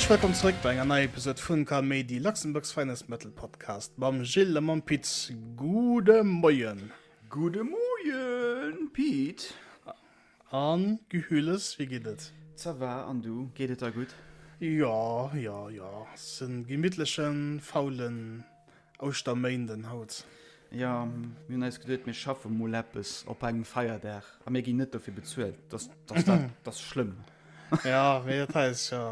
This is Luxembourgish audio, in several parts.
Häerzlech wëllkomm zréck bei enger neier Episode vun Kaméidi, Luxembourg's finest metal podcast mam Gilles a mam Pit. Gudde Moien! Gudde Moien, Pit! An Gehülles, wéi geet et? Ça va, an du, geet et der gutt? Jo, jo, jo, ass en gemittlechen, faulen Ouschterméinden haut. Jo, mir hunn eis geduet, mir schaffe mol eppes op engem Feierdag a mir ginn net dofir bezuelt. Dat ass, dat ass schlëmm. Jo, mee dat hei ass jo,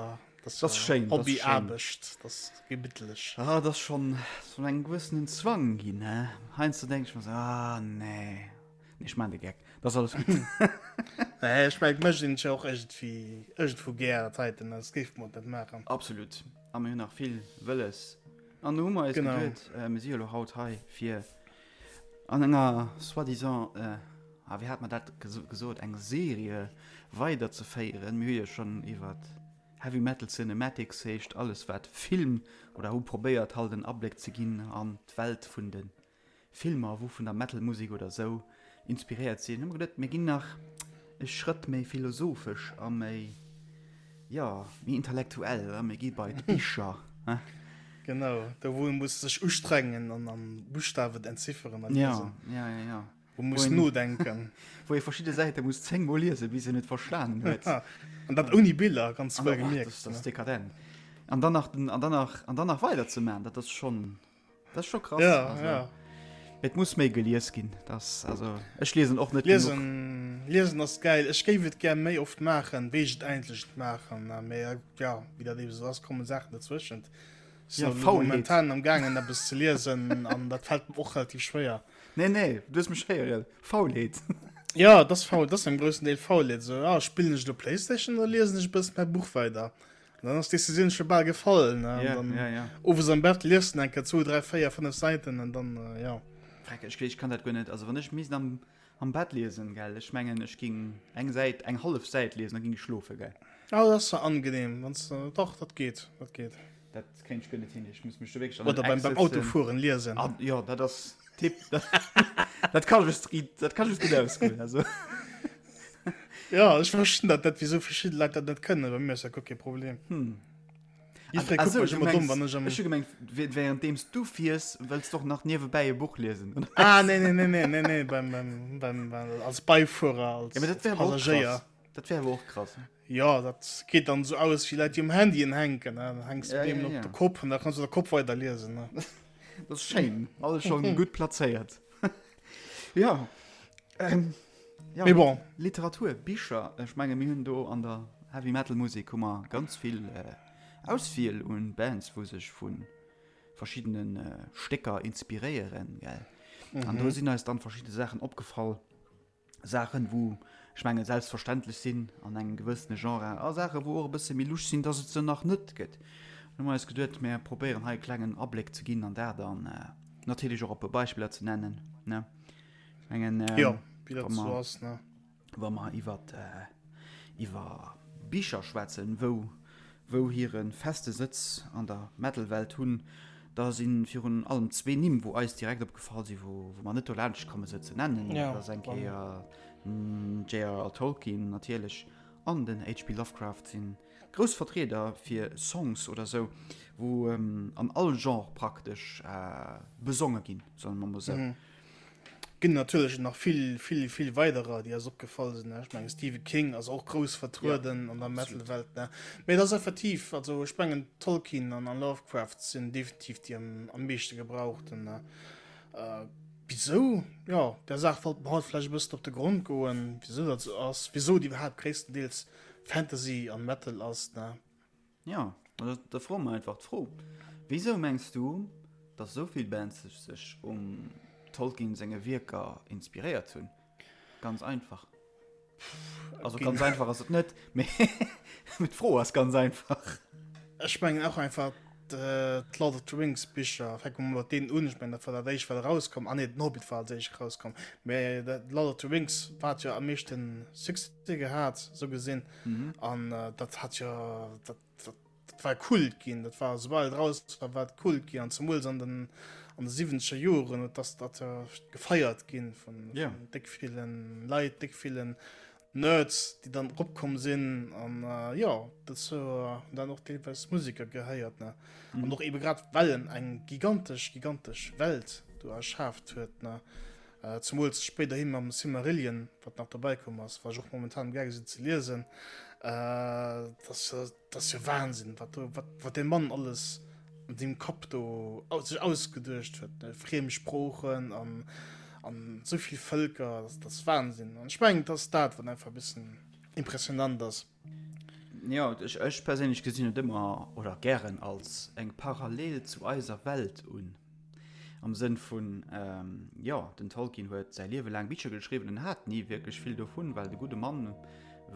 dat ass schéin, Hobbyaarbecht, dat ass gemittlech. Ah, dat ass schonn esou engem gewëssenen Zwang ginn, he. Heiansdo denk ech mer esou, ah nee. Nee, ech maan de Geck. Dat ass alles gutt. Nee, ech mengen, et mécht een et jo och iergendwéi, iergendwou gär, dat heiten, soss géife mer et net maachen. Absolut. A mir hunn nach vill wëlles. An do hu mer eis Genau. geduet, mir si jo elo haut hei, fir an enger soi-disant, ah, wéi hat mer dat gesot, eng Serie weiderzeféieren. Mir hu jo schonn iwwer Heavy Metal Cinematics, heescht alles wat Film, oder hu probéiert halt en Abléck ze ginn an d'Welt vun de Filmer, wou vun der Metal-Musek oder sou inspiréiert sinn, hu mer geduet, mir ginn nach e Schrëtt méi philosophesch a méi, jo, méi intellektuell a mir gi bei d'Bicher. Genau, do wou ee muss sech ustrengen an an Buschtawen entzifferen a liesen. Ja, ja, ja, ja. Wou ee muss nodenken. Wou ee verschidde Säite muss zéngmol liesen, bis een et verstanen huet. An dat ouni Biller, ganz wuelgemierkt. Dat ass dekadent. An dann nach, an dann nach, an dann nach weider ze maachen, dat ass schonn. Dat ass scho krass. Ja, also, ja. Et muss méi gelies ginn. Das, also, ech liesen och net liesen, liesen ass geil. Ech géif et gär méi oft maachen, wéi ech et eigentlech maachen. Mee ja, wéi dat eben sou ass, kommen Saachen dozwëschent. Ja, Faulheet. Momentan am gaangen eppes ze liesen an dat fält mir och relativ schwéier. Nee, nee, du hues mech héieren. Faulheet. Ja, dat ass faul, dat ass am groussen Deel Faulheet. Sou, ah, spillen ech elo Playstation oder liesen ech e bëssen mäi Buch weider? Dann ass d'Decisioun scho bal gefall, ne? Ja, dann ja, ja. Owes am Bett liest du enke 2, 3, 4, 5 Säiten an dann, äh, ja. Freck, ech, ech kann dat guer net. Also wann ech misst am, am Bett liesen, gell, ech mengen, ech ging eng Säit, eng hallef Säit liesen, da ging ech schlofen, gell. Ah, dat ass zwar angenehm, wanns du, doch, dat geet, dat geet. Dat kéint ech guer net hin, ech muss mech do wierklech an Oder beim, beim Autofueren liesen. Ah, jo, dat ass Tipp. Dat, dat kann ech, dat kann ech gutt ausgoen, also. Ja, ech verstinn dat net, wieso verschidde Leit dat net kënnen. Bei mir ass dat guer kee Problem. Hm. Jiddweree Ah, kuckt so, mech du ëmmer domm, mengs, wann ech am. ech hu gemengt, währenddeems du fiers, wëlls du och nach niewebäi e Buch liesen, oder? Ah, nee, nee, nee, nee, nee, nee, beim, beim, beim, beim, als Beifuerer, als, Ja, mee dat als wär awer och krass. Passagéier. Dat wär awer och krass. Ja, dat geet dann esou aus wéi Leit, déi um Handyen hänken, ne? Dann hänks du Ja, deem ja, op ja. de Kopp an da kanns du der Kopp weider liesen, ne? Dat ass schéin, alles schonn gutt plazéiert. Ja. Ähm, ja, Mee bon. Literatur, Bicher, ech menge mir hunn do an der Heavy Metal Musek hu mer ganz vill äh, Auswiel un Bands, wou sech vu verschiddenen äh, Stécker inspiréieren, gell. Mhm. An do sinn eis dann verschidde Saachen opgefall. Saachen, wou ech menge selbstverständlech sinn an engem gewëssene Genre, a Saachen, wou och e bësse méi lusch sinn, dass et se nach net gëtt. Hu mer eis geduet, mir probéieren hei e klengen Abléck ze ginn an dat an äh, natierlech och e puer Beispiller ze nennen, ne. Ech mengen, ähm, Jo, wéi dat wa sou mer, ass, ne. wa mer iwwer, äh, iwwer Bicher schwätzen, wou, wou hire feste Sëtz an der Metal-Welt hunn, da si virun allem zwee Nimm, wou eis direkt opgefall sinn, wou, wou mer net dolaanscht komme se ze nennen. Ja, Dat ass eng Kéier den JRR Tolkien natierlech an den HP Lovecraft sinn Grouss Vertrieder fir Songs oder sou, wou an all Genre praktesch besonge ginn, soe mer mol sou. Ginn natierlech nach vill, vill, vill weiderer, déi eis opgefall sinn. Ech mengen Stephen King ass och grouss vertrueden an der Metal-Welt, ne. Mee et ass effektiv, also ech mengen Tolkien an Lovecraft sinn definitiv déi am meeschte gebrauchten. Wisou? Jo, där Saach wollte mer haut vläicht e bëssen op de Grond goen, wisou dat sou ass, wisou et iwwerhaapt gréisstendeels Fantasy an Metal ass, ne? Jo, da froe mer einfach d'Fro, Wisou mengs du, datt esou vill Bands sech sech um Tolkien senge Wierker inspiréiert hunn? Ganz einfach. Also ganz einfach ass et net, mee d'Fro ass ganz einfach. Ech mengen och einfach d'Lord of the Rings Bicher, fänke mer mat deenen un, ech mengen dat war dat éischt wat erauskomm, ah nee den Hobbit war als éischt erauskomm, mee Lord of the Rings wat jo am meeschten Succès gehat sou gesinn an dat hat jo dat dat war Kult ginn, dat war soubal et raus war, war et Kult ginn an zemools an den an de siwwenzeger Joren huet dass dat gefeiert ginn vun déck villen Leit, déck villen. Nerds, déi dann eropkomm sinn an jo, dozou hunn dann och deelweis Museker gehéiert, ne. An och ebe grad well en eng gigantesch, gigantesch Welt do erschaaft huet, ne. Zemools spéiderhi mam Silmarillion, wat nach dobäi komm ass, wat ech och momentan am gaange sinn ze liesen, dat ass jo, dat ass jo Wahnsinn, wat do, wat, wat dee Mann alles an sengem Kapp do sech ausgeduecht huet, ne, friem Sproochen an, an esou vill Vëlker, dat, dat ass Wahnsinn. An ech mengen, et ass dat, wat einfach e bëssen impressionant ass. Jo, ech, ech perséinlech gesinn et ëmmer oder gären als eng Parallel zu eiser Welt un. Am Sënn vun, jo, den Tolkien huet säi Liewe laang Bicher geschriwwen, en hat ni wierklech vill dovun, well de gudde Mann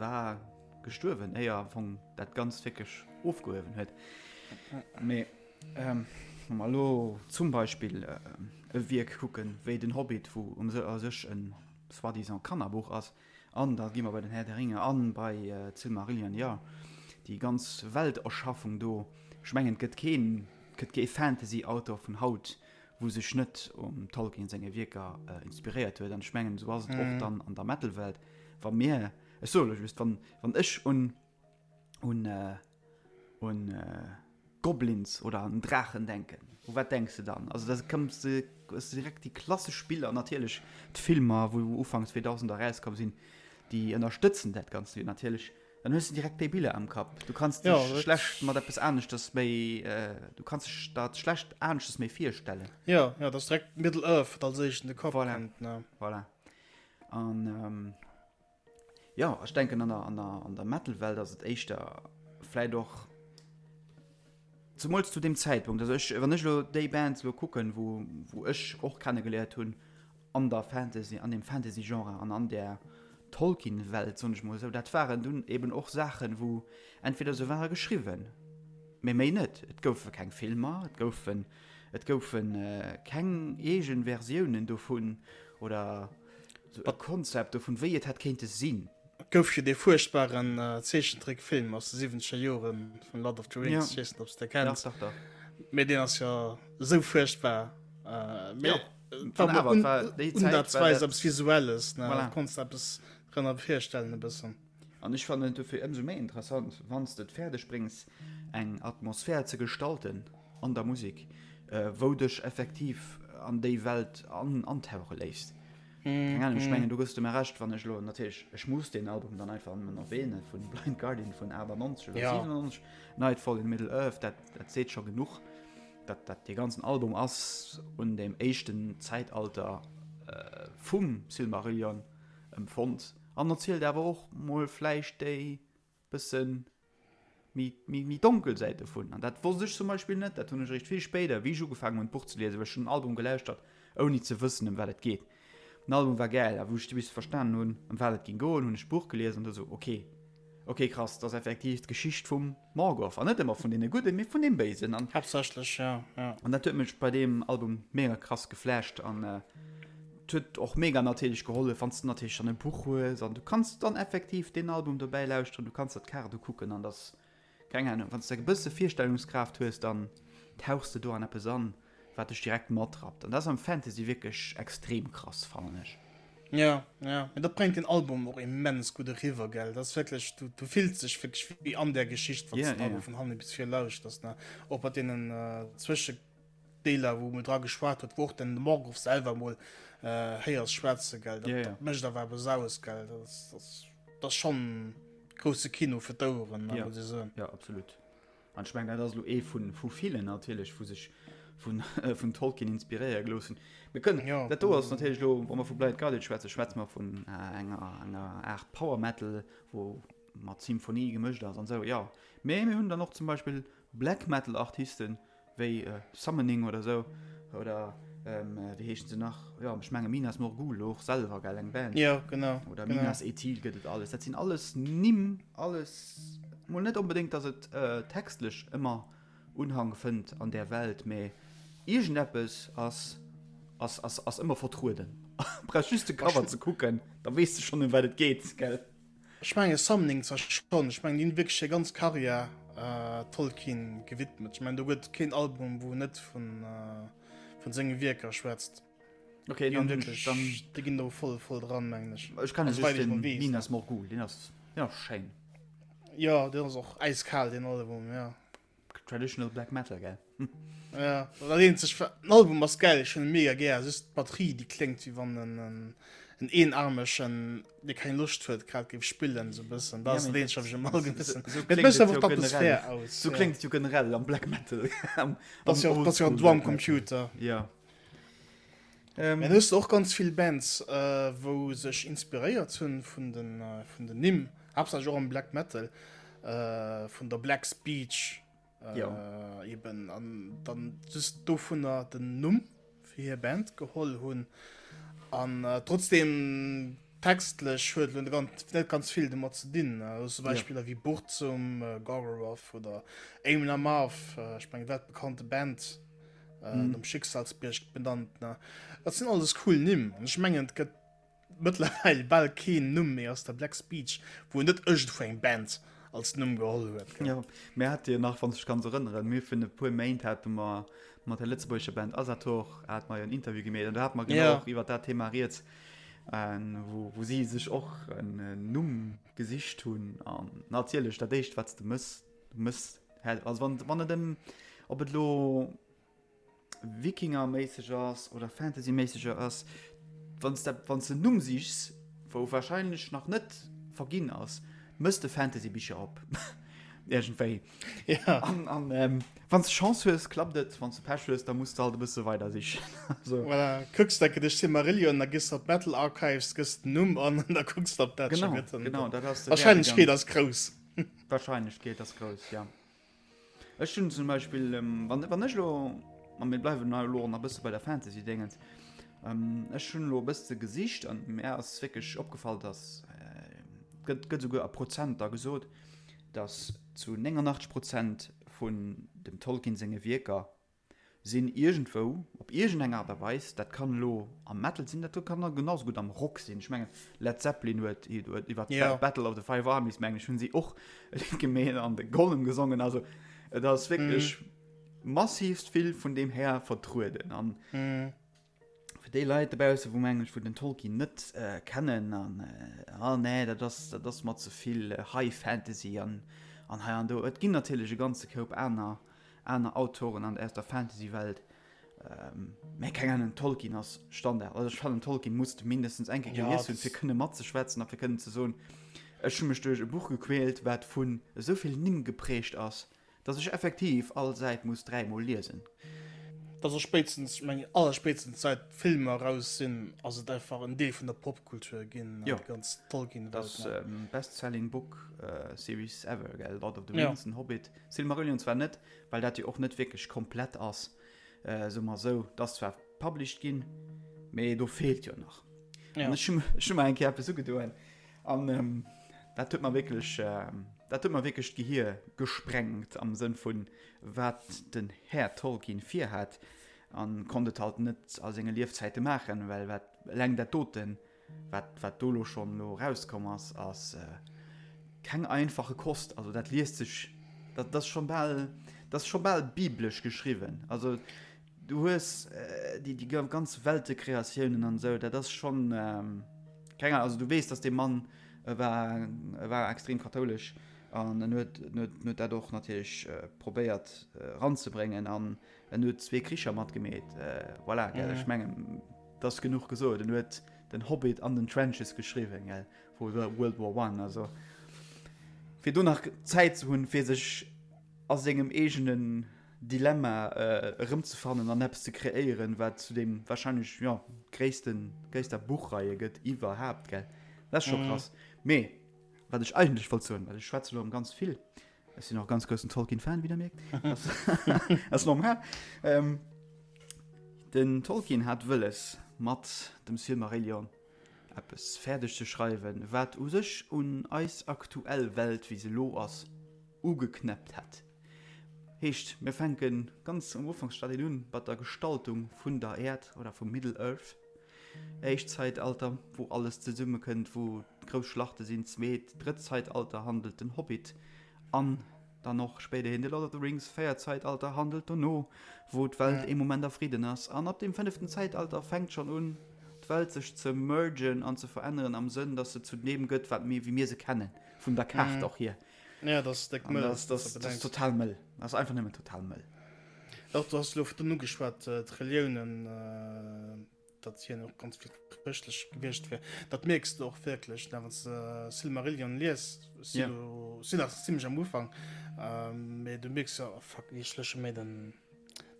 war gestuerwen, éier am Fong dat Ganzt wierklech ofgehuewen huet. Mee wa mer elo zum Beispill e Wierk kucken, wéi den Hobbit, wou u sech e soi-disant Kannerbuch ass, an da gi mer bei den Herr der Ringe an bei d'Silmarillion, jo, déi ganz Welterschaffung do, ech mengen, et gëtt keen, et gëtt kee Fantasy-Auteur vun haut, wou sech net um Tolkien senge Wierker inspiréiert huet. An ech mengen, esou ass et och dann an der Metal-Welt, wa mir, Ech soe lo just, wann, wann ech un, un, un Goblins oder un Draachen denken, u wat denks de dann? Also da këmms de, hues de direkt déi klassesch Biller, natierlech d'Filmer, wou Ufank 2000 erauskomm sinn, déi ënnerstëtzen dat Ganzt jo natierlech. Dann hues de direkt déi Biller am Kapp. Du kanns dech ja, schlecht mat eppes aneschters méi, du kanns dech dat schlecht aneschters méi virstellen. Ja, ja, dat ass direkt Middle-earth, wat als éischt in de Kapp voilà. kënnt, ne? Voilà. An jo, ech denken an der, an der, an der Metal-Welt ass et éischter vläit och, zemools zu deem Zäitpunkt, also ech, wann ech elo déi Bands elo kucken, wou, wou ech och kennegeléiert hunn an der Fantasy, an deem Fantasy-Genre an an där Tolkien-Welt, soen ech mol esou, dat waren dunn eben och Saachen, wou entweder se ware geschriwwen, mee méi net, et goufe keng Filmer, et goufen, et goufe keng eegen Versiounen dovun oder Sou e Konzept dovun, wéi et hätt kéinte sinn. Et gouf jo dee fuerchtbaren Zeechentrickfilm aus de siwwenzeger Jore vun Lord of the Rings, ech weess net, ob s de kenns. Dach, dach, dach. Mee deen ass jo esou fuerchtbar. Mee et war mol unsatzweis eppes Visuelles, ne? Voilà. Konns de eppes drënner virstellen e bëssen. An ech fannen et dofir ëmsou méi interessant, wann s de et fäerdeg bréngs, eng Atmosphär ze gestalten an der Musek, wou dech effektiv an déi Welt antauche léisst. Keng Ahnung, ech mengen, do gëss de mer Recht, wann ech elo, natierlech, ech muss deen Album dann einfach nëmmen erwähnen, vun Blind Guardian vun 98 oder 97, Nightfall in Middle-earth, dat, dat seet scho genuch. Dat, dat, dee ganzen Album ass un deem éischten Zäitalter vum Silmarillion empfonnt an erzielt awer och mol vläicht déi bëssen méi, méi, méi donkel Säit dovun. An dat wosst ech zum Beispill net, dat hunn ech eréischt vill spéider, wéi ech ugefaangen hunn d'Buch ze liesen, well ech hunn den Album gelauschtert, ouni ze wëssen ëm wat et geet. Den Album war gäil, a wou ech du bis verstanen hunn, ëm wat et géing goen, hunn ech d'Buch gelies an du sou, ok, ok krass, dat ass effektiv d'Geschicht vum Morgoth, an net ëmmer vun deene Gudden, mee vun deem Béisen. An Haaptsächlech, ja, ja. An dat huet mech bei deem Album mega krass geflasht an Et huet och mega natierlech gehollef, wann s de natierlech dann e Buch hues an du kanns dann effektiv deen Album dobäi lauschteren, du kanns der d'Kaart ukucken an dass, keng Ahnung, wann s de e bësse Virstellungskraaft hues, dann tauchs de do an eppes an, wat dech direkt matrappt. An dat ass am Fantasy wierklech extrem krass, fannen ech. Ja, ja, mee dat bréngt den Album och immens gutt eriwwer, gell? Dat ass wierklech, du, du fills dech wierklech wéi an där Geschicht, wann s de den Album vun hanne bis vir lauschters, ne? Och mat deenen Zwësche. Deeler wou mol dra geschwat huet, wou och den Morgoth selwer mol héiers schwätze gell, dat, dat mécht awer eppes aus gell, dat ass, dat ass, dat ass schonn grousse Kino fir d'Oueren, ja. muss ech soen. Ja, absolut. An ech mengen, dat ass elo ee vun, vu villen natierlech, wou sech vun, vun Tolkien inspiréiere gelooss hunn. Mir kënnen, ja, dat do ass natierlech elo, wa mer vu Blind Guardian schwätzen, schwätze mer vun enger, enger Aart Power Metal, wou mat Symphonie gemëscht ass an esou, jo. Mee mir hunn dann och zum Beispill Black Metal Artisten, Wéi Summoning oder sou oder wéi heeschen se nach? Jo ech menge Minas Morgul och selwer gell eng Band. Jo genau. Oder Minas Ethil gëtt et alles. Dat sinn alles Nimm, alles mol net onbedéngt, datt et textlech ëmmer Unhang fënnt an där Welt, mä iergendeppes ass ass ass ass ëmmer vertrueden. Brauchs just de Cover ze kucken, da weess de schonn ëm wat et geet, gell? Ech mengen Summoning zwar schonn, ech mengen déi hunn wierklech hir ganz Karriär Tolkien gewidmet. Ech mengen do gëtt keen Album wou net vun vun senge Wierker schwätzt. Okay, dann, wirklich, dann, die ginn do voll voll dran mengen ech. Ech kann also, den Minas Morgul, den ass, den ass schéin. Ja, den ass och eiskal den Album, ja. Traditional Black Metal, gell? Ja, dat eenzeg, den Album ass geil, ech hunn e mega gär, just d'Batterie déi kléngt wéi wann en en eenarmegen, dee keng Loscht huet, grad géif spillen, sou e bëssen. Dat ass dat eenzegt, wat ech ëmmer bëssen. Mee et mécht einfach d'Atmosphär aus. Sou kléngt et jo generell am Black Metal. Dat ass jo och, dat ass jo en Drumcomputer. Ja. Mä du hues och ganz vill Bands, wou sech inspiréiert hunn vun den, vun den Nimm, haaptsächlech och am Black Metal, vun der Black Speech eben, an dann just dovunner den Numm fir hir Band geholl hunn. An trotzdem textlech huet elo net ganz vill domat ze dinn. Also Beispiller wéi Burzum, Gorgoroth oder Amon Amarth, ech mengen weltbekannte Band. äh, mm. nom Schicksalsbierg benannt. Ne? Dat sinn alles cool Nimm. An ech mengen, et gëtt mëttlerweil bal keen Numm méi aus der Black Speech, wou net iergendwou eng Band als Numm geholl huet. Ja, mir hat jo nach, wann s dech kanns erënneren, mir vun e puer Méint hate mer mat der lëtzebuergescher Band Asator hat mer jo en Interview gemeet an do hat mer genau ja. och iwwer dat Thema rieds, äh, wou, wou si sech och en Numm gesicht hunn an natierlech dat éischt wat s de mëss, du mëss Also wann, wann et em, ob et lo Wikingerméisseg ass oder Fantasyméisseg ass, wann s de, wann s de en Numm sichs, wou wahrscheinlech nach net verginn ass, mëss de Fantasybicher op. Iergendwéi. Ja. An, an ähm, wann s de Chance hues, klappt et, wann s de Pech hues, da muss de halt e bësse weider sichen. Also. Voilà, kucks de duerch Silmarillion, da gëss de op Metal Archives, gëss den Numm an an da kucks de, ob dat scho gëtt. Genau, genau, dat ass de Wahrscheinlechkeet ass grouss. D'Wahrscheinlechkeet ass grouss, ja. Ech hunn zum Beispill, wann, wann ech elo, a mir bleiwen hei elo och nach e bësse bei der Fantasy-Déngens, ech hunn elo e bësse gesicht an mär ass wierklech opgefall, dass, gëtt, gëtt esouguer a Prozenter gesot, dass zu 89 Prozent vun dem Tolkien senge Wierker sinn iergendwou, op iergendeng Aart a Weis, dat kann elo am Metal sinn, dat kann da genau sou gutt am Rock sinn, ech mengen Led Zeppelin huet iwwer d'Battle of the Five Armies, mengen ech, hunn si och e Lidd gemeet an de Gollum gesongen, also et ass wierklech massivst vill vun deem Här vertrueden an fir déi Leit dobausse wou mengen ech wou den Tolkien net kennen an ah nee dat ass dat ass mer ze vill High Fantasy an an hei an do, et ginn natierlech e ganze Koup aner aner Autoren an aus der Fantasy-Welt, mä keng Ahnung, Tolkien ass Standard. Also ech fannen Tolkien muss de mindestens eng Kéier gelies hunn, fir kënne matzeschwätzen a fir kënnen ze soen, ech hu mech duerch e Buch gequält, wat vun esou vill Nimm geprägt ass, dass ech effektiv all Säit muss dräimol liesen. Dat ass spéitstens, ech mengen allerspéitstens säit d'Filmer eraus sinn, ass et einfach en Deel vun der Popkultur ginn, déi ganz Tolkien-Welt. Dat ass best-selling book series ever, gell, Lord of the Rings, den Hobbit. Silmarillion zwar net, well dat jo och net wierklech komplett ass, soe mer esou, et ass zwar published ginn, mee do feelt jo nach. Ja. An ech hu ech hu mer eng Kéier eppes ugedoen an dat huet mer wierklech, dat huet mer wierklech d'Gehier gesprengt am Sënn vun wat den Här Tolkien virhat an konnt et halt net a senge Liefzäite maachen, well wat eleng dat doten Wat, wat do lo schonn lo erauskomm ass, ass keng einfache Kost. Also dat liest sech, dat ass scho bal, dat ass scho bal biblesch geschriwwen. Also du hues déi, déi ganz Weltekreatiounen an esou, dat ass schonn, keng Ahnung, also du weess, dass dee Mann, e war, e war extrem kathoulesch an en huet, en huet, en huet dat och natierlech probéiert eranzebréngen an en huet zwee Kricher matgemeet. Voilà, gell, ech mengen. 't ass genuch gesot, en huet den Hobbit an den Trenches geschriwwen, gell, vu World War One, also fir do nach Zäit ze hunn, fir sech a sengem eegenen Dilemma erëmzefannen an eppes ze kreéieren, wat zu deem wahrscheinlech, jo, gréissten, gréisster Buchreihe gëtt iwwerhaapt, gell, dat ass scho krass. Mee wat ech eigentlech wollt soen, well ech schwätze lo erëm ganz vill, Ech sinn och ganz groussen Tolkien-Fan, wéi der mierkt. Ass normal. Ähm, den Tolkien hat wëlles, mat dem Silmarillion eppes fäerdeg ze schreiwen, wat u sech un eis aktuell Welt, wéi se elo ass, ugeknäppt hätt. Heescht, mir fänke ganz am Ufanksstadien un, mat der Gestaltung vun der Äerd oder vum Middle-earth. Éischt Zäitalter, wou alles zesummekënnt, wou grouss Schlachte sinn. Zweet, drëtt Zäitalter handelt den Hobbit an. Dann och spéiderhin The Lord of the Rings, véiert Zäitalter handelt dono, wou d'Welt ee Moment a Fridden ass. An ab dem fënneften Zäitalter fänkt schonn un, d'Welt sech ze mergen an ze veränneren am Sënn, dass se zu deem gëtt, wat mir, wéi mir se kennen, vun der Kaart och hier. Ja, dat ass déck mëll. Dat ass total mëll. Dat ass einfach nëmmen total mëll. Och du has elo virdrun ugeschwat, d'Reliounen, datt hien och ganz vill chrëschtlech gewiescht wier. Dat mierks de och wierklech, ne, wann s de Silmarillion lies. Si elo, si nach zimmlech am Ufank, mee du mierks jo, oh fuck, ech lösche méi den,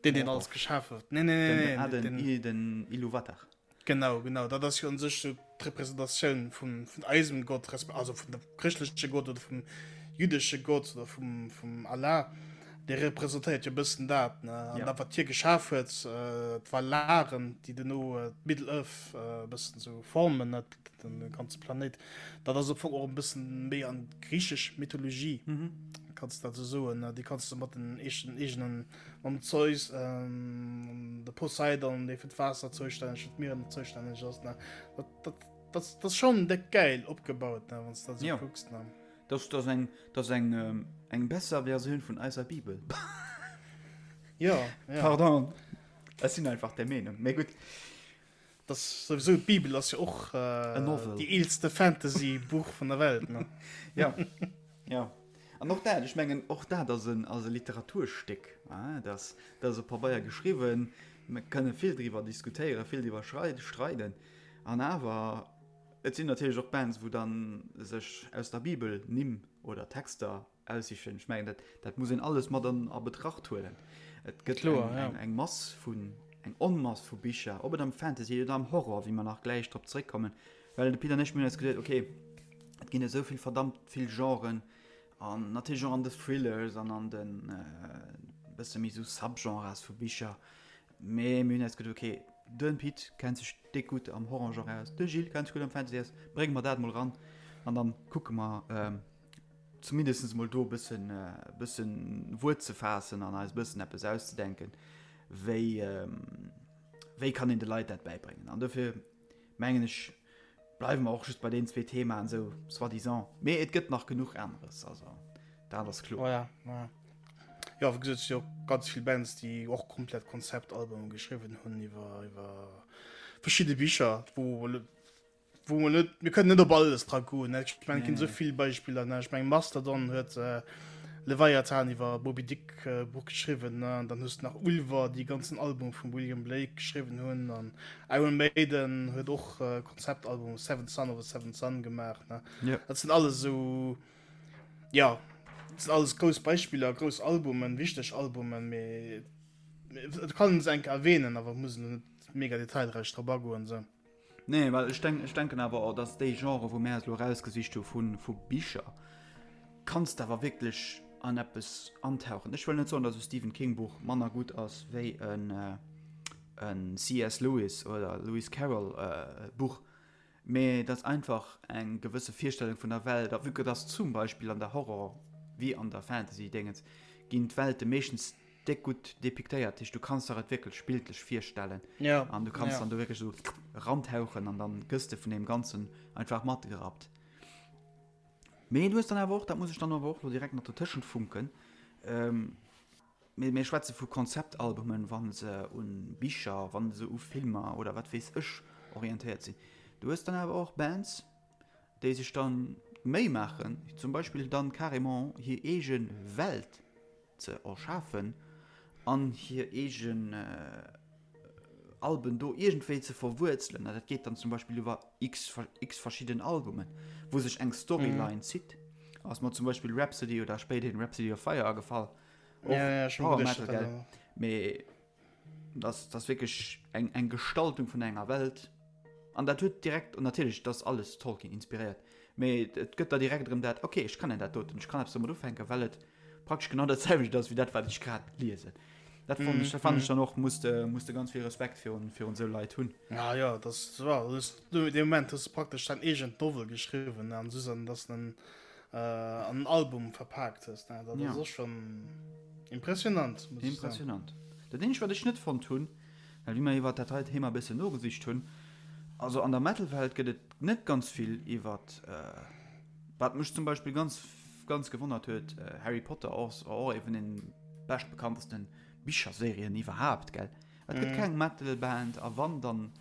deen, deen alles geschaf huet. Nee, nee, nee, nee, den, den, den Iluvatar. Genau, genau, dat ass jo un sech sou d'Representatioun vun, vun eisem Gott, resp. Also vun dem chrëschtleche Gott oder vum jüdesche Gott oder vum, vum Allah. Dee representéiert jo e bëssen dat, ne? An ja. dat, wat hie geschaf huet, äh, d'Valaren, déi duerno äh, d'Middle-earth äh, e bëssen sou formen, ne? Den ganze Planéit. Dat ass am Fong och e bëssen méi an d'griichesch Mythologie, mhm. kanns dat sou soen, ne? Déi kanns du mat den eegenen, eegenen Mam Zeus, ähm, de Poseidon, dee fir d'Waasser zoustänneg, fir d'Mieren zoustänneg ass, ne? Dat, dat, dat, dat ass schon déck gäil opgebaut, ne, wann s du dat sou kucks, ne? Dat ass eng, dat ass eng, ähm, eng besser Versioun vun eiser Bibel. Ja, ja. Pardon, ech sinn einfach der Meenung. Mee gutt. Das souwisou d'Bibel ass jo och äh, déi eelste Fantasy-Buch vun der Welt. Ne? ja. ja. An och dat, ech mengen och dat ass en, ass e Literaturstéck. Ah, dat, dat ass op Pabeier geschriwwen. Mir kënne vill driwwer diskutéieren, vill driwwer streiden. An awer, et sinn natierlech och Bands, wou dann sech aus der Bibel Nimm oder Texter Aussichen. Ech mengen, dat, dat muss een alles mat an a Betracht huelen. Et gëtt Kloer, eng, ja. eng, eng Mass vun, eng Onmass vu Bicher, ob et am Fantasy oder am Horror, wéi mer nach gläich drop zréckkommen. Well de Pit an ech, mir hunn eis geduet, okay, et ginn esou vill verdammt vill Genren an natierlech och an de Thrillers an an den e bësse méi esou Subgenres vu Bicher. Mee mir hunn eis geduet, okay, de Pit kennt sech déck gutt am Horrorgenre aus, de Gilles kennt sech gutt am Fantasy aus, brénge mer dat mol eran an dann kucke mer, zumindest mol do e bëssen, e bëssen Wuert ze faassen an eis e bëssen eppes auszedenken, wéi, wéi kann een de Leit dat bäibréngen. An dofir mengen ech, bleiwe mer och just bei deenen zwee Themaen esou soi-disant. Mee et gëtt nach genuch aneres, also dat ass kloer. Oh ja, ja. Jo, wéi gesot, et si jo ganz vill Bands, déi och komplett Konzeptalbume geschriwwen hunn iwwer, iwwer verschidde Bicher, wou Wou mer net, mir kënnen net op alles dra goen, ne? Ech mengen, et ginn esou vill Beispiller, ne? Ech mengen, Mastodon huet Leviathan iwwer Moby Dick Buch geschriwwen, ne? An dann hues de nach Ulver, déi ganzen Album vum William Blake geschriwwen hunn. An Iron Maiden huet och Konzeptalbum Seventh Son of a Seventh Son gemaach, ne? Dat sinn alles esou, jo, dat sinn alles grouss Beispiller, grouss Albumen, wichteg Albumen, mee et kann een se eng Kéier erwähnen, awer et muss een elo net mega detailräich drop agoen, esou. Nee, well ech denk, ech denken awer och, dass déi Genre, wou mär eis elo erausgesicht hu vu, vu Bicher, kanns de awer wierklech an eppes antauchen. Ech wëll net soen, dass e Stephen King Buch manner gutt ass wéi en, en CS. Lewis oder Lewis Carroll Buch, mee dass einfach eng gewësse Virstellung vun der Welt, a vue que dass zum Beispill an der Horror wéi an der Fantasy-Dingens ginn d'Welte meeschtens déck gutt depiktéiert, dat heescht du kanns der et wierklech bildlech virstellen ja, an du kanns ja. dann do wierklech esou rantauchen an dann gëss de vun deem Ganzen einfach matgerappt. Mee du hues dann awer och, dat muss ech dann awer och lo direkt nach dotëschent funken, ähm, mir, mir schwätze vu Konzeptalbumen, wa se un Bicher, wa se u Filmer oder wat weess ech orientéiert sinn. Du hues dann awer och Bands, déi sech dann d'Méi maachen, zum Beispill dann carrément hir eege Welt ze erschafen an hir eegen Alben do iergendwéi ze verwuerzelen. An dat geet dann zum Beispill iwwer x, x verschidden Albumen, wou sech eng Storyline zitt. Ass mer zum Beispill Rhapsody oder spéiderhin Rhapsody of Fire agefall. Och ja, ja, Power Metal, gell? Mee das, das wierklech eng, eng Gestaltung vun enger Welt. An dat huet direkt, und natierlech, dat ass alles Tolkien inspiréiert, mee et gëtt der direkt erëm dat, okay, ech kennen dat doten, ech kann eppes domat ufänken, well et praktesch genau dat selwecht ass wéi dat wat ech grad liesen. Dat fand ech, dat fand ech dann och, muss de, muss de ganz vill Respekt virun, virun esou Leit hunn. Ja, ja, das war, das, du, de Moment hues du praktesch dein eegent Novel geschriwwen an Susan, dass den äh, an en Album verpaakt hues, ne? Dat Ja. ass och schon impressionant, muss ech soen. Impressionant. Dat eenzegt wat ech net fonnt hunn, well wéi mer iwwert dat hei Thema e bëssen nogesicht hunn, also an der Metal-Welt gëtt et net ganz vill iwwert, äh, wat mech zum Beispill ganz. ganz gewonnert huet, Harry Potter ass och ee vun den beschtbekanntesten Bicherserien iwwerhaapt, gell? Et gëtt keng Metal-Band, a wann, dann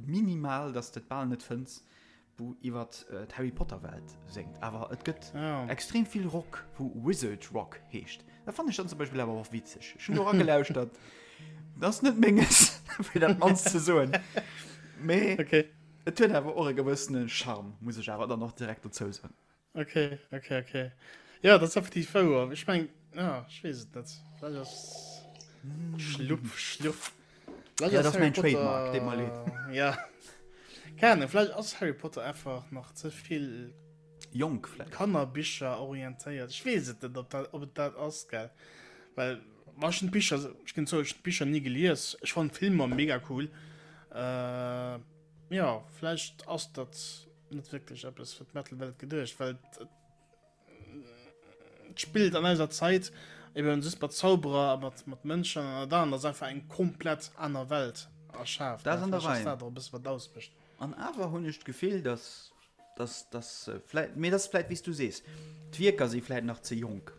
minimal, dass de et bal net fënns, wou iwwer d'Harry Potter Welt séngt. Awer et gëtt extrem vill Rock, wou Wizard Rock heescht. Dat fannen ech dann zum Beispill awer och witzeg. Ech hunn do eragelauschtert. Dat ass net menges, fir dat mannst ze soen. Mee okay. et huet awer och e gewëssene Charme, muss ech awer dann och direkt dozou soen. Okay, okay, okay. Ja, dat ass effektiv wouer. Ech meng, ja, ech weess et net. Vläicht ass Schlupp, Schluff. Vläicht ja, ass Harry Potter, Trademark, deet mer leed. Ja. Keine Ahnung, vläicht ass Harry Potter einfach nach ze vill jonk vläicht. Kannerbicher orientéiert. Ech weess et net, ob dat, ob et dat ass, gell. Well, wa ech hunn d'Bicher, ech ginn zou, ech hunn d'Bicher ni gelies. Ech fannen d'Filmer mega cool. Äh, ja, vläicht ass dat net wierklech eppes fir d'Metal-Welt geduecht, well et spillt an eiser Zait eben just mat Zauberer a mat, mat Mënschen an dann ass einfach eng komplett aner Welt erschaaft. Dat ass an der Rei. Dat och e bësse wat ausmécht. An awer hunn ech d'Gefill, dass, dass, dass vläit, mee dat ass vläit wéi s du sees, d'Wierker si vläit nach ze jonk.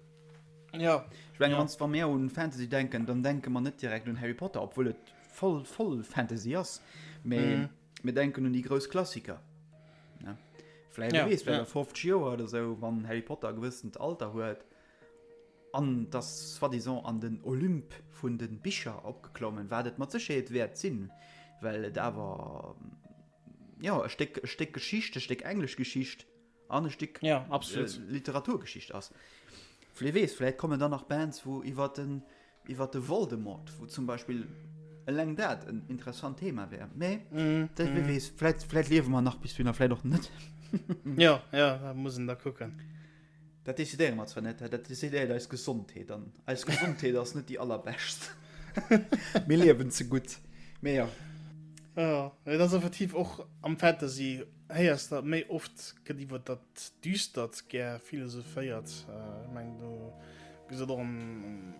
Ja. Ech mengen, wann, wa mir un Fantasy denken, dann denke mer net direkt un Harry Potter, obwuel et voll, voll Fantasy ass, mee. Mm. Mir denken un déi grouss Klassiker. Ne? Vläicht, ja, weess, ja. 50 Joer oder sou, wann Harry Potter e gewëssent Alter huet an das soi-disant an den Olymp vun den Bicher opgeklommen, wat et mat Sécherheet wäert sinn, well et awer ja, e Stéck, e Stéck Geschicht, e Stéck englesch Geschicht an e Stéck ja, absolut. Äh, Literaturgeschicht ass. Vläicht weess, vläicht kommen dann nach Bands, wou iwwer den iwwer de Voldemort, wou zum Beispill eleng dat en interessant Thema wär. Mee mm, dat, mm. weess, vläicht, vläicht liewe mer nach bis dohinner, vläicht och net. ja, ja, da muss en da kucken. Dat decidéiere mer zwar net, dat decidéiert eis Gesondheet an eis Gesondheet ass net déi allerbescht. Mir liewen ze gutt. Mee ja. Ja, dat ass effektiv och am Fantasy Héiers de méi oft gëtt iwwer dat Düstert gär philosophéiert. Ech mengen do gesot och am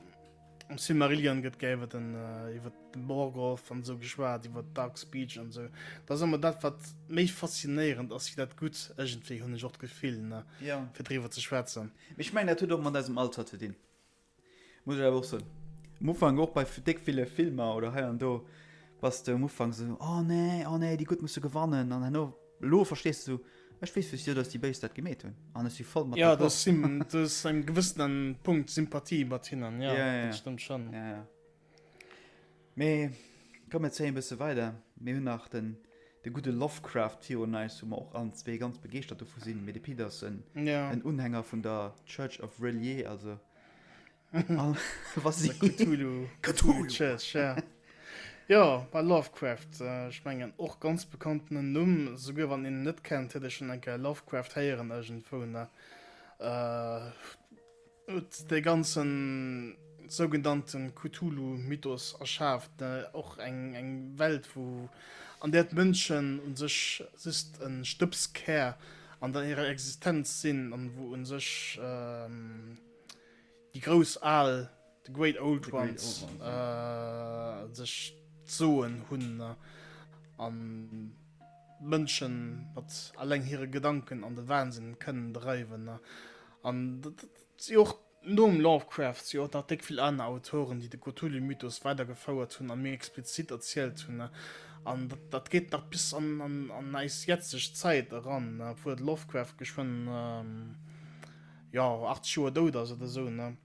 Silmarillion gëtt gär iwwer den iwwer de Morgoth an esou geschwat, iwwer Dark Speech an esou. Dat ass ëmmer dat wat méi faszinéierend ass wéi dat Gutt iergendwéi, hunn ech och d'Gefill, ne, fir driwwer ze schwätzen. Mee ech mengen dat huet och mat eisem Alter ze dinn. Muss ech awer och soen. Um Ufank och bei déck ville Filmer oder hei an do bass de um Ufank esou, oh nee, oh nee, déi Gutt musse gewannen an herno, elo verstees de esou, ech weess wéisou dass déi Béis dat gemeet hunn an ech si voll mat Ja, d'accord. du hues engem gewëssenen Punkt Sympathie mat hinnen, ja, Ja, ja, dat stëmmt schonn. ja, ja. Mee komm mir zéien e bësse weider. Mir hunn nach den de gudde Lovecraft virun eis, wou mer och allen zwee ganz begeeschtert dovu sinn. Mee de Pit ass en Ja. en Unhänger vun der Church of R'lyeh, also all wa si Cthulhu, Cthulhu Church, ja. Jo, bei Lovecraft, ech mengen och ganz bekanntenen Numm, souguer wann een en net kennt, huet ee schonn eng Kéier Lovecraft héieren iergendwou, ne? Huet dee ganzen sougenannten Cthulhu-Mythos erschaaft, och eng eng Welt wou an där d'Mënschen un sech just e Stëbskär an der hirer Existenz sinn an wou un sech déi grouss Al, the Great Old Ones, sech d'Soen hunn an d'Mënschen mat alleng hire Gedanken an de Wahnsinn kënnen dreiwen. An dat si och nom Lovecraft si och nach déck vill aner Autoren, déi de Cthulhu-Mythos weidergefouert hunn a méi explizit erzielt hunn. An dat, dat geet nach bis an, an, an eis jetzeg Zäit eran, obwuel de Lovecraft geschwënn, jo, 80 Joer dout ass oder esou, ne?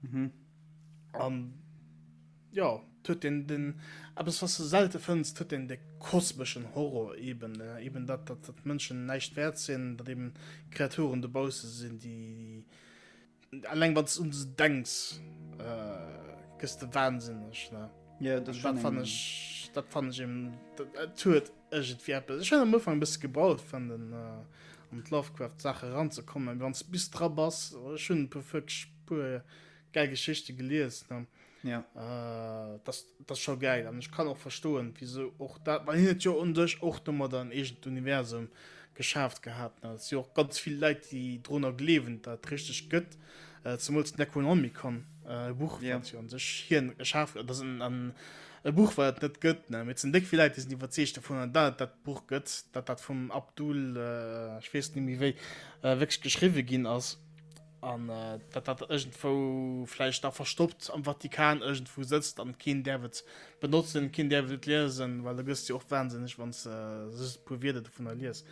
An. Jo, et huet een den, eppes was de selte fënns, et huet een de kosmeschen Horror eben, eben dat, dat, dat d'Mënschen näischt wäert sinn, datt eben Kreaturen dobausse sinn, déi, eleng wann s de un se denks, gëss de wahnsinneg, ne? Jo, dat ass schonn eng. Dat fannen ech eben, et huet iergendwéi eppes. Ech hunn am Ufank e bësse gebraucht, fir an den, an d'Lovecraft-Saach eranzekommen, mee wann s de bis dra bass, ech hunn e puer, wierklech e puer gäil Geschichte gelies, ne? Ja. Äh, das, das scho geil an ech kann och verstoen wieso och dat well hien huet jo un sech och domadder en eegent Universum geschaaft gehat ne. Et si och ganz vill Leit déi drunner gleewen dat et richteg gëtt, äh, zemools d'Necronomicon, äh, e Buch Ja. wat jo un sech hien erschaf dat ass en en e Buch wat et net gëtt ne, mee et sinn déck vill Leit déi sinn iwwerzeegt dovunner dat et dat Buch gëtt, dat dat vum Abdul, äh, ech weess net méi wéi, äh, wierklech geschriwwe ginn ass. An datt dat iergendwou vläicht da verstoppt am Vatikan iergendwou sëtzt an keen däerf et benotzen, keen däerf et liesen, well da gëss de jo och wahnsinneg, wann s de just e puer Wierder dovunner lies.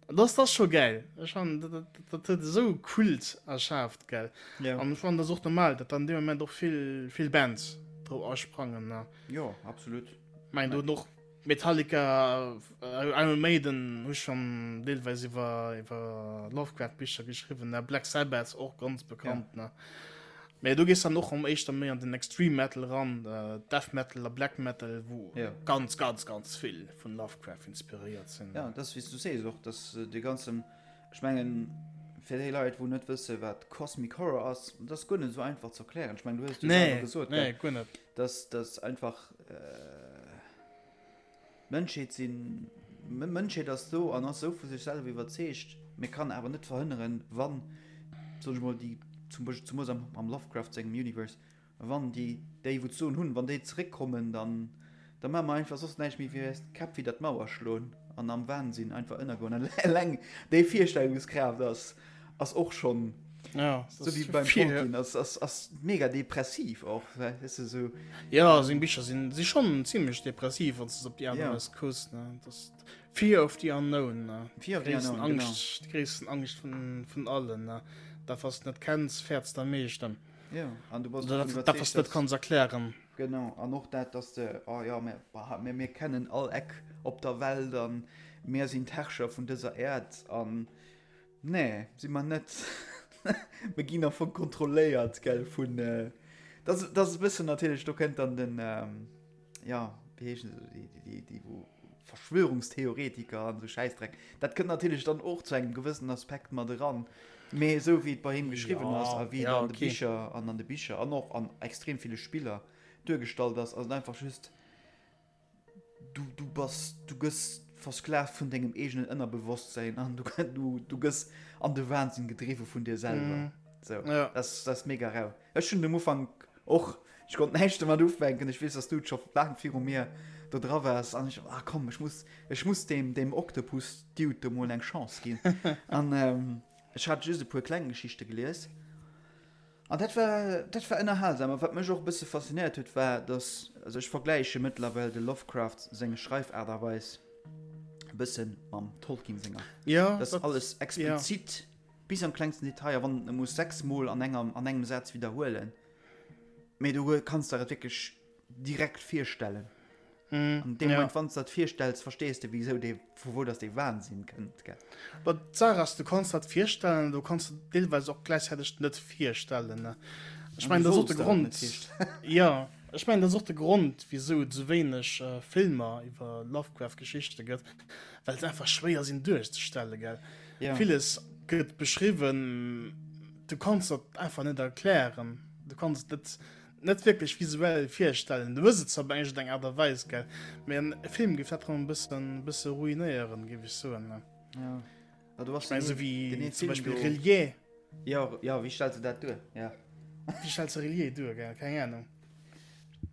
An dat ass scho gäil. Ech fannen, dat, dat huet esou e Kult erschaaft, gell. Ja. An ech fannen, dat ass och normal, datt dann dee Moment och vill, vill Bands drop asprangen, ne. Jo, absolut. Mein, do hunn och Metallica, Iron Maiden hu schonn deelweis iwwer, iwwer Lovecraft-Bicher geschriwwen, ne. Black Sabbath och ganz bekannt, ja. ne. Mee do gees dann och am éischter méi an den Extreme Metal ran, Death Metal a Black Metal, wou ja. ganz, ganz, ganz vill vun Lovecraft inspiréiert sinn. Ja, das wéi du sees och, dass äh, de ganzen, ech mengen, fir déi Leit, wou net wësse wat Cosmic Horror ass, das ass guer net esou einfach ze erklären. Ech mengen, du hues du nee, gesot, nee, guer net. Dass das einfach äh, D'Mënschheet sinn, Mënschheet ass do an ass esou vu sech selwer iwwerzeegt, mee kann awer net verhënneren, wann, soen ech mol, déi, zum Beispill zemoos am, am Lovecraft sengem Universe, wann déi, déi wou d'Soen hunn, wann déi zeréckkommen, dann, da maache mer einfach soss näischt méi wéi eis d'Käpp widder d'Mauer schloen an am Wahnsinn einfach ënnergoen. An eleng déi Virstellungskraaft ass, ass och schonn, Ja, so wéi beim Tolkien, ass, ass, ass mega depressiv och, weess de, sou. Ja, seng Bicher sinn, si schonn zimmlech depressiv, wann s de se op déi aner Weis kucks, ne. Das Fear of the Unknown, ne. Fear of the Unknown, genau. Angscht, déi gréissten Angscht vun, vun allen, ne. Dat, wat s de net kenns, fäerts de am meeschten. Ja, an du bass Oder dat, dat, wat s de net kanns erklären. Genau, an och dat, dass de, oh ja, mir, bah, mir, mir kennen all Eck op der Welt an mir sinn d'Herrscher vun dëser Äerd an Nee, si mer net. Mir ginn am Fong kontrolléiert, gell, vun. Dat ass, dat ass e bëssen natierlech, do kënnt dann den, ja, wéi heeschen se, déi, déi, déi wou Verschwörungstheoretiker an esou Schäissdreck. Dat kënnt natierlech dann och zu engem gewëssenen Aspekt mat eran. Mee esou wéi et bei him geschriwwen ass a wéi et an de Bicher an an de Bicher an och an extrem ville Spiller duergestallt ass, ass et einfach just, Du, du bass, du gëss versklavt vun dengem eegenen Ënnerbewosstsinn an du, du, du gëss an de Wahnsinn gedriwwe vun dir selwer. Mm. So, ja. das, das ist mega rau. Ech hunn am Ufank och, ech konnt näischt domat ufänken. Ech weess, dass du scho laang viru mir do dra waars an ech, ah komm, ech muss, ech muss dem, dem Octopus Dude do mol eng Chance ginn. an ähm, ech hat just e puer kleng Geschichte gelies. An dat war, dat war ënnerhalsam. A wat mech och e bësse faszinéiert huet, war, dass, also ech vergläiche mëttlerweil de Lovecraft seng Schreifaart a Weis e bësse mam Tolkien senger. Ja, Dat ass alles explizit, ja. bis am klengsten Detail, a wann e muss sechsmol an enger, an engem Saz widderhuelen, mee du kanns der et wierklech direkt virstellen. Mm, An deem Moment, ja. wann du dat virstells, verstees du, wieso dee, vu wou dass dee Wahnsinn kënnt. Gell? But d'Saach ass, du kanns dat virstellen, du kanns et deelweis och gläichzäiteg net virstellen. Ne? Ech mein, dat ass och de Grond. Ja, ech mein, dat ass och de Grond, wieso et sou wéineg äh, Filmer iwwer Lovecraft-Geschichte gëtt, well se einfach schwéier sinn duerchzestellen, gell? Ja. Villes gëtt beschriwwen, du kanns dat einfach net erklären. Du kanns et net Net wierklech visuell virstellen. Du hues et zwar op eng eng Aart a Weis, gell, mee en Film géif dat rëm e bëssen, bësse ruinéieren, géif ech soen. Ja. Ja, du hast Ich mein, so wéi zum Beispiel Relier. Ja, ja, wéi stellst du dat duer? Ja. Wéi stellst du Relier duer, gell? Keng Ahnung.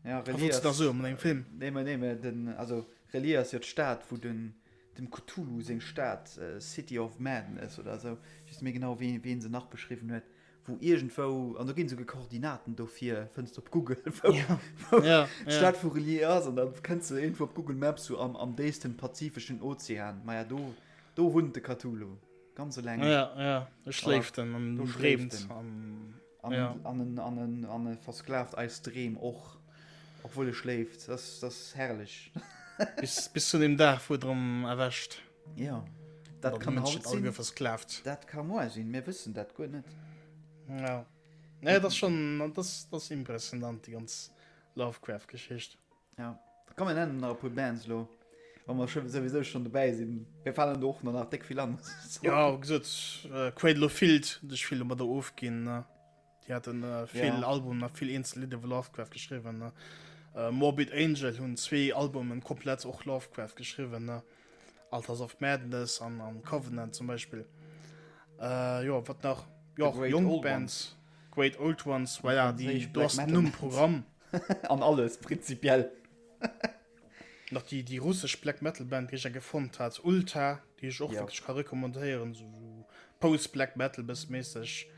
Ja, Relier ass. Da so an engem Film. Nee, mä nee, mä den, also Relier ass jo d'Stad, wou den, dem Cthulhu seng Stad, City of Madness oder esou, ech weess net méi genau, wéi, wéi en se nach beschriwwen huet. wou iergendwou, an do ginn esouguer Koordinaten dofir, fënns de op Google, wou, ja. wou ja, d'Stad ja. vu Relier ass, an da kënns de iergendwou op Google Maps so am, am déifsten pazifeschen Ozean. Maja, do, do wunnt de Cthulhu, ganz eleng. Ja, ja, e schléift en an do schléift en. An, an, ja. an, en, an, en, an e versklavt eis Dreem och, obwuel e schléift. Das, das ass herrlech. bis, bis zu dem Dag, wou et erëm erwächt. Ja, dat kann haut sinn. Versklavt. Dat ka moar sinn, mir wëssen dat guer net. Ja. Nee, dat ass schon, dat ass, dat ass impressionant, déi ganz Lovecraft-Geschicht. Ja. Komm, mir nennen nach e puer Bands lo, wa mer scho souwisou schon dobäi sinn. Mir falen do och nach déck vill an. Ja, wéi gesot, Cradle of Filth, hunn sech vill domadder ofginn, ne? Déi haten vill Albumen a vill eenzel Lidder iwwer Lovecraft geschriwwen. Morbid Angel hunn zwee Albumen komplett och Lovecraft geschriwwen, Altars of Madness an an Covenant zum Beispill. Jo, wat nach? Jo, och jonk Bands. Great Old Ones, voilà, déi, do ass den Numm Programm. An alles, prinzipiell. Nach déi, déi russesch Black Metal Band, déi ech eng fonnt hat, Ulta, déi ech och wierklech ka recommandéieren, sou Post-Black Metal bësse méisseg.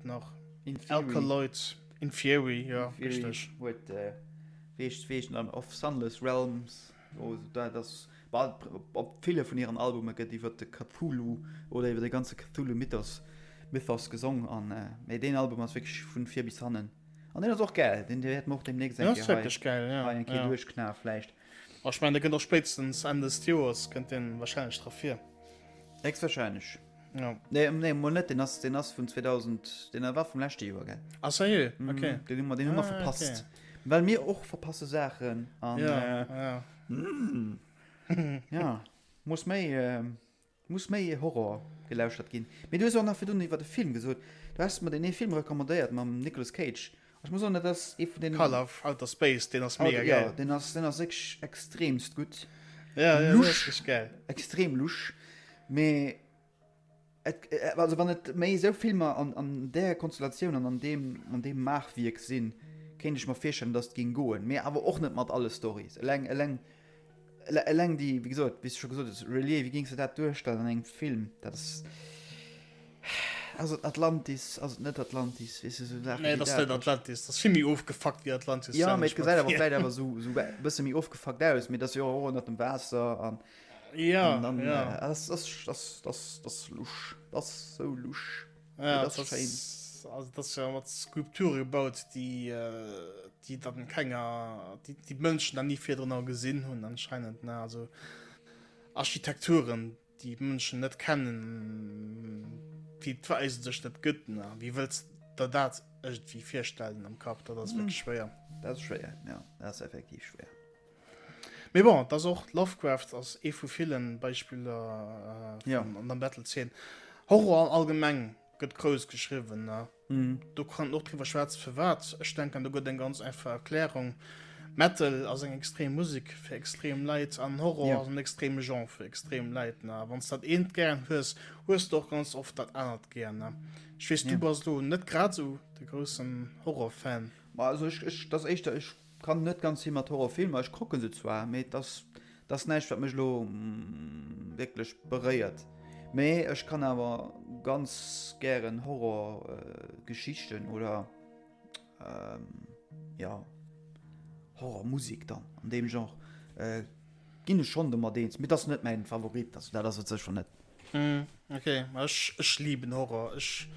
et nach? In Theory. Alkaloid, In Theory, jo, richteg. Huet, wéi heescht, wéi heescht en, Of Sunless Realms, oh, dat ass, bah, op ville vun hiren Albume gëtt iwwer de Cthulhu oder iwwer de ganze Cthulhu-Mythos, Mythos gesong an, mee deen Album ass wierklech vun vir bis hannen. An deen ass och gäil, deen wäerte mer och demnächst eng Kéier hei, geil, ja, hei eng Kéier ja. duerchknae vläicht. A ech mengen, dee kënnt och spéitstens Enn des Joers kënnt deen wahrscheinlech dra vir. Héchstwahrscheinlech. Ja. Nee, nee, mol net, deen ass, deen ass vun 2000, deen war vum leschte Joer, gell? Ah, sérieux? Okay. Mm, deen hu mer, deen hu mer Ah, verpasst. okay. Well mir och verpasse Saachen an, Ja, äh, ja. mm, ja, muss méi, äh, Muss méi Horror gelauschtert ginn. Mee du hues och nach virdrun iwwer e Film gesot. Du has mer deen ee Film recommandéiert mam Nicolas Cage. Ech muss soen, dat ass ee vun deenen. Color of Outer Space, deen ass mega gäil. Jo, deen ass, deen ass wierklech extremst gutt. Ja, ja, deen ass Lusch, wierklech gäil. extrem lusch. Mee et, also wann et méi esou Filmer an, an där Konstellatioun an an deem, an deem Maachwierk sinn, kéint ech mer virstellen, datt et géing goen. Mee awer och net mat alle Storys. Eleng, eleng Eleng déi, wéi gesot, wéi s de scho gesot hues, Relier, wéi géings de dat duerstellen an engem Film? Dat ass, ass et Atlantis, ass et net Atlantis, weess de, esou Saachen Nee, wéi dat ass net dat. Atlantis, dat ass vill méi ofgefuckt wéi Atlantis, Jo, stellen mee ech et mer gesäit awer vir. vläicht awer esou, esou e bësse méi ofgefuckt aus, mee et ass jo och ënnert dem Waasser an, Ja, an dann, ja. ass, ass, ass, ass, ass lusch, ass sou lusch. Ja, dat ass schéin. Also dat ass jo mat Skulpture gebaut, déi, déi dann kenger, déi déi Mënschen dann ni virdrun gesinn hunn anscheinend, ne? Also Architekturen, déi d'Mënschen net kennen, déi et eigentlech net gëtt, ne? Wéi wëlls der dat iergendwéi virstellen am Kapp? Dat ass wierklech schwéier. Dat ass schwéier, jo, dat ass effektiv schwéier. Mee bon, et ass och, Lovecraft ass ee vu villen Beispiller Ja. an der Metal-Zeen. Horror allgemeng gëtt grouss geschriwwen, ne? Mhm. Do kann een och driwwer schwätzen, firwat. Ech denken, do gëtt eng ganz einfach Erklärung. Metal ass eng extrem Musek fir extrem Leit an Horror Ja. ass en extreme Genre fir extrem Leit, ne? Wann s dat eent gären hues, hues de och ganz oft dat anert gär, ne? Ech weess, du Ja. bass elo net grad esou de groussen Horror-Fan. Ma also ech, ech, dat ass éischter, ech Kann net ganz vill mat Horrorfilmer, ech kucken se zwar, mee et ass et ass näischt wat mech elo wierklech beréiert. Mee ech kann awer ganz gären Horrorgeschichten oder jo Horrormusek dann an deem Genre ginn ech schonn domat eens, mee et ass net mäin Favorit, also dat ass et sécher net. Mm, okay, ech, ech lieben Horror. Ech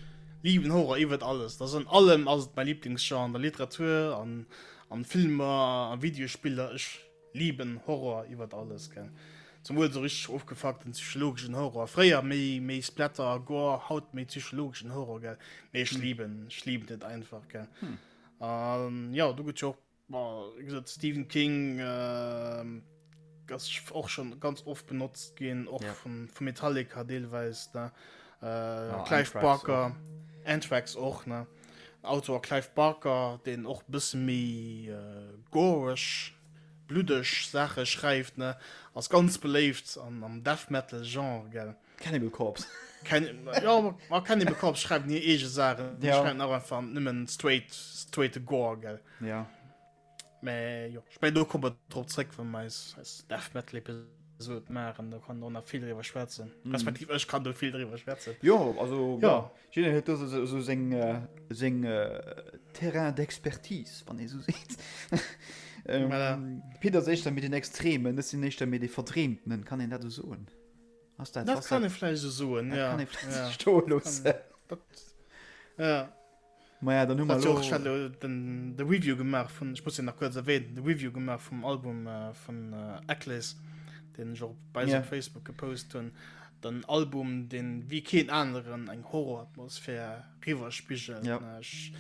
lieben Horror iwwert alles. Das an allem ass et mein Lieblingsgenre an der Literatur, an, an Filmer, an Videospiller. Ech lieben Horror iwwert alles, gell. Zemol so richtig ofgefuckten psychologischen Horror. Fréier méi, méi Splatter, Gore, haut méi psychologischen Horror, gell. Mee ech lieben, ech lieben et einfach, gell. Hm. An ja, do gëtt jo och Wéi gesot, Stephen King ass och schon ganz oft benotzt ginn, och Ja. vun, vu Metallica deelweis, ne? Äh, Ja, Clive Anthrax Barker, Anthrax och, ne? Autor Clive Barker, deen och bësse méi äh, goreg, bluddeg Saache schreift, ne? Ass ganz beléift an, am Death Metal Genre, gell? Cannibal Corpse. Ken, ja, ma Cannibal Corpse schreiwen hir eege Saachen. Die Ja. schreiwen auch einfach nëmmen straight, straight Gore, gell. Ja. Mä jo, ich mein, do komme mer drop zréck, wann mer eis, eis Death Metal Episode maachen. Do kann och nach vill driwwer schwätzen. Mhm. Respektiv ech kann do vill driwwer schwätzen. Jo, also Ja. ja. Jidder huet do sou, sou seng, äh, seng äh, Terrain d'expertise, wann ee sou seet. ähm, Voilà. Pit ass éischter méi den Extremen, ech sinn éischter méi dee Verdreemtenen, kann een dat esou soen? Ass dat, Dat ass kann dat, ee vläicht esou soen, dat ja. kann ee vläicht Ja. stoe loossen. Dat, ja. Maja, dann hu mer Hat jo och, ech elo. hat elo den, de Review gemaach vun, ech muss den nach kuerz erwähnen, de Review gemaach vum Album äh, vun äh, Akhlys, den ech och bei eis Ja. op Facebook gepost hunn. Den Album, den wéi keen aneren eng Horroratmosphär riwwerspigelt. Ja. Ne, Ech,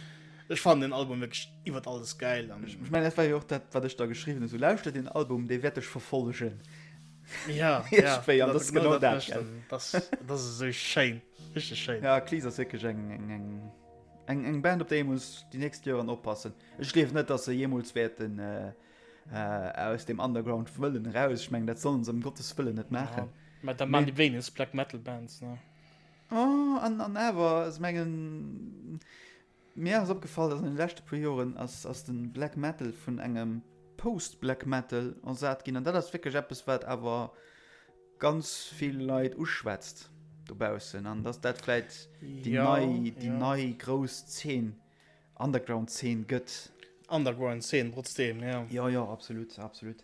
ech fannen den Album wierklech iwwert alles geil. An, Ech mengen, dat war jo och dat, wat ech da geschriwwen hunn, sou lauschter den Album, dee wäert dech verfollegen. Ja, ja. Iergendwéi, an dat ass genau dat, mécht gell? en. Das, das ass esou schéin. Richteg schéin. Ja, Akhlys ass wierklech eng, eng, eng, eng, eng Band, op déi ee muss déi nächst Joren oppassen. Ech gleef net, dass se jeemools wäerten äh, äh, aus dem Underground wëllen eraus. Ech mengen, dat sollen se ëm Gottes Wëllen net maachen. Ja, mä da man déi wéinegst Black Metal Bands, ne? Oh, an, an awer, ech mengen, Mir ass opgefall, dass an den leschte puer Joren ass ass den Black Metal vun engem Post Black Metal ersat ginn an dat ass wierklech eppes wat awer ganz vill Leit uschwätzt. Dobaussen an dass dat vläit déi nei, déi nei grouss Zeen, Underground-Zeen gëtt. Underground-Zeen trotzdem, jo. Jo, jo, absolut, absolut.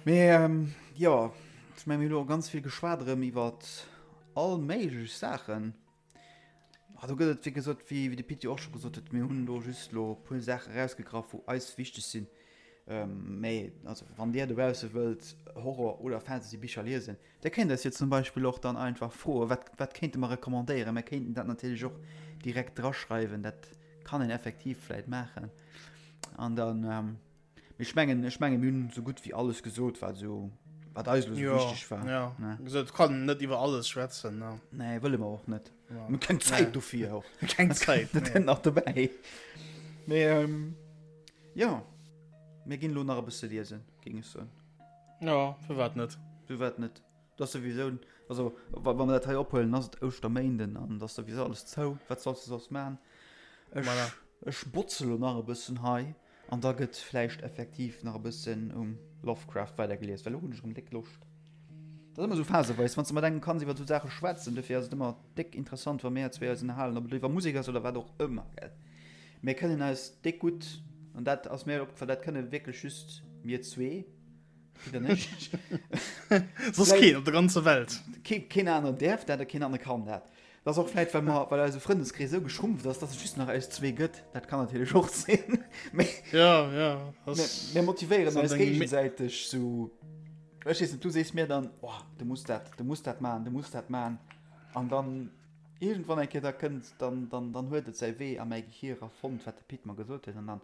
Mee jo, ech menge mir hu lo ganz vill geschwat erëm iwwer all méiglech Saachen. Ah, do gëtt et wéi gesot, wéi de Pit jo och scho gesot huet, mir hunn do just lo e puer Saache erausgegraff, wou eis wichteg sinn. Mee also wann Dir dobausse wëllt Horror oder Fantasy-Bicher liesen, Dir kéint eis jo zum Beispill och dann einfach froen, wat, wat kéinte mer recommandéieren. Mer kéinten dat natierlech och direkt draschreiwen, dat kann een effektiv vläit maachen. An dann, ähm, ech mengen, ech mengen, mir hunn esou gutt wéi alles gesot, wat esou, wat eis elo esou wichteg war. Ja, ne? Gesot, kann net iwwer alles schwätzen. Ne? Nee, wëlle mer och net. Ja. Mir keng Zäit nee. dofir och. Keng Zäit. Dat nee. nach dobäi. Mee, ähm, ja, mir ginn elo nach e bësse liesen, géing ech soen. Ja, firwat net? Firwat net? Dat ass souwisou, also wa wa mer dat hei ophuelen, ass et Ouschterméinden an et ass souwisou alles zou. Wat solls de soss man? Ech, Voilà. ech botze lo nach e bëssen hei an da gëtt vläicht effektiv nach e bëssen um Lovecraft weidergelies, well elo hunn ech erëm déck Loscht. Dat ass ëmmer esou phaseweis, wann s de mat engem kanns iwwer esou Saache schwätzen. Dofir ass et ëmmer déck interessant, wa mir zwee eis ënnerhalen, ob et elo iwwer Musek ass oder wat och ëmmer, gell. Mir kënnen eis déck gutt, an dat ass mir opgefall, dat kënne wierklech just mir zwee, Pit an ech. Soss keen op der ganzer Welt. Keen, keen aneren däerf dat a keen anere kann dat. Dat ass och vläit, well mer, well eise Frëndeskrees esou geschrumpft ass, dass et just nach eis zwee gëtt. Dat kann natierlech och sinn. Mee Ja, ja. mir, mir motivéieren eis géigesäiteg sou. Ech weess net, du sees mir dann, oh, du muss dat, du muss dat maachen, du muss dat maachen. An dann Iergendwann eng Kéier da kënnt, dann, dann, dann huet et säi Wee a mäi Gehier era fonnt, wat de Pit mer gesot huet, an dann,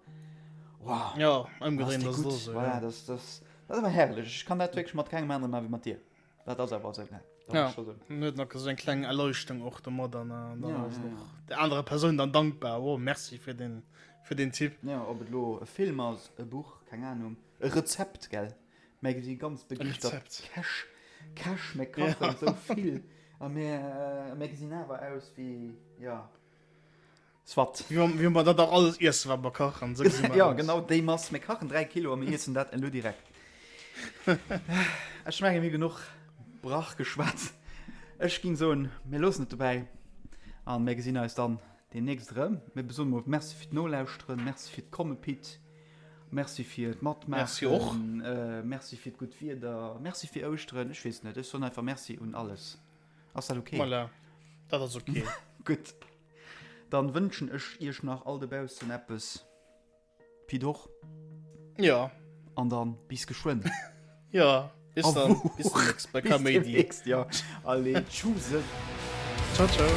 wow, Ja, ëmgedréint ass ass et och esou, Voilà, dat, dat, dat ass awer herrlech. Ech kann dat wierklech mat kengem anere maachen wéi mat dir. Dat ass awer esou, ne? Dat Ja, muss ech en huet nach esou eng kleng Erleuchtung och domat an dann Ja, ass ja, och der anerer Persoun dann dankbar, oh, merci fir den, fir den Tipp. Ja, ob et elo e Film ass, e Buch, keng Ahnung, e Rezept, gell? Mir si ganz begeeschtert Käch. Käch, mir kachen ja. sou vill a mir, mir gesinn awer aus wéi, ja, soit. Wéi mer dat auch alles iessen, wat mer kachen. Sou gesi mer Ja, genau déi Mass. Mir kachen 3 Kilo a mir iessen dat elo direkt. Ech menge mir genuch Brach geschwat. Ech ging soen, mir loossen et dobäi a mir gesinn eis dann deemnächst erëm. Mir soen mol Merci fir d'Nolauschteren, Merci fir d'Komme Pit. Merci fir d'Matmaachen. Merci och. Merci fir d'gutt Wieder. Merci fir Ouschteren. Ech weess net, ech soen einfach Merci un alles. Ass dat ok? Voilà, dat ass ok. Gutt. Dann wënschen ech iech nach all dobaussen eppes. Pit och. Jo. An dann bis geschwënn. Jo, bis dann. Bis demnächst bei Kaméidi. Bis demnächst, jo. Allez, tschuse. Ciao, ciao.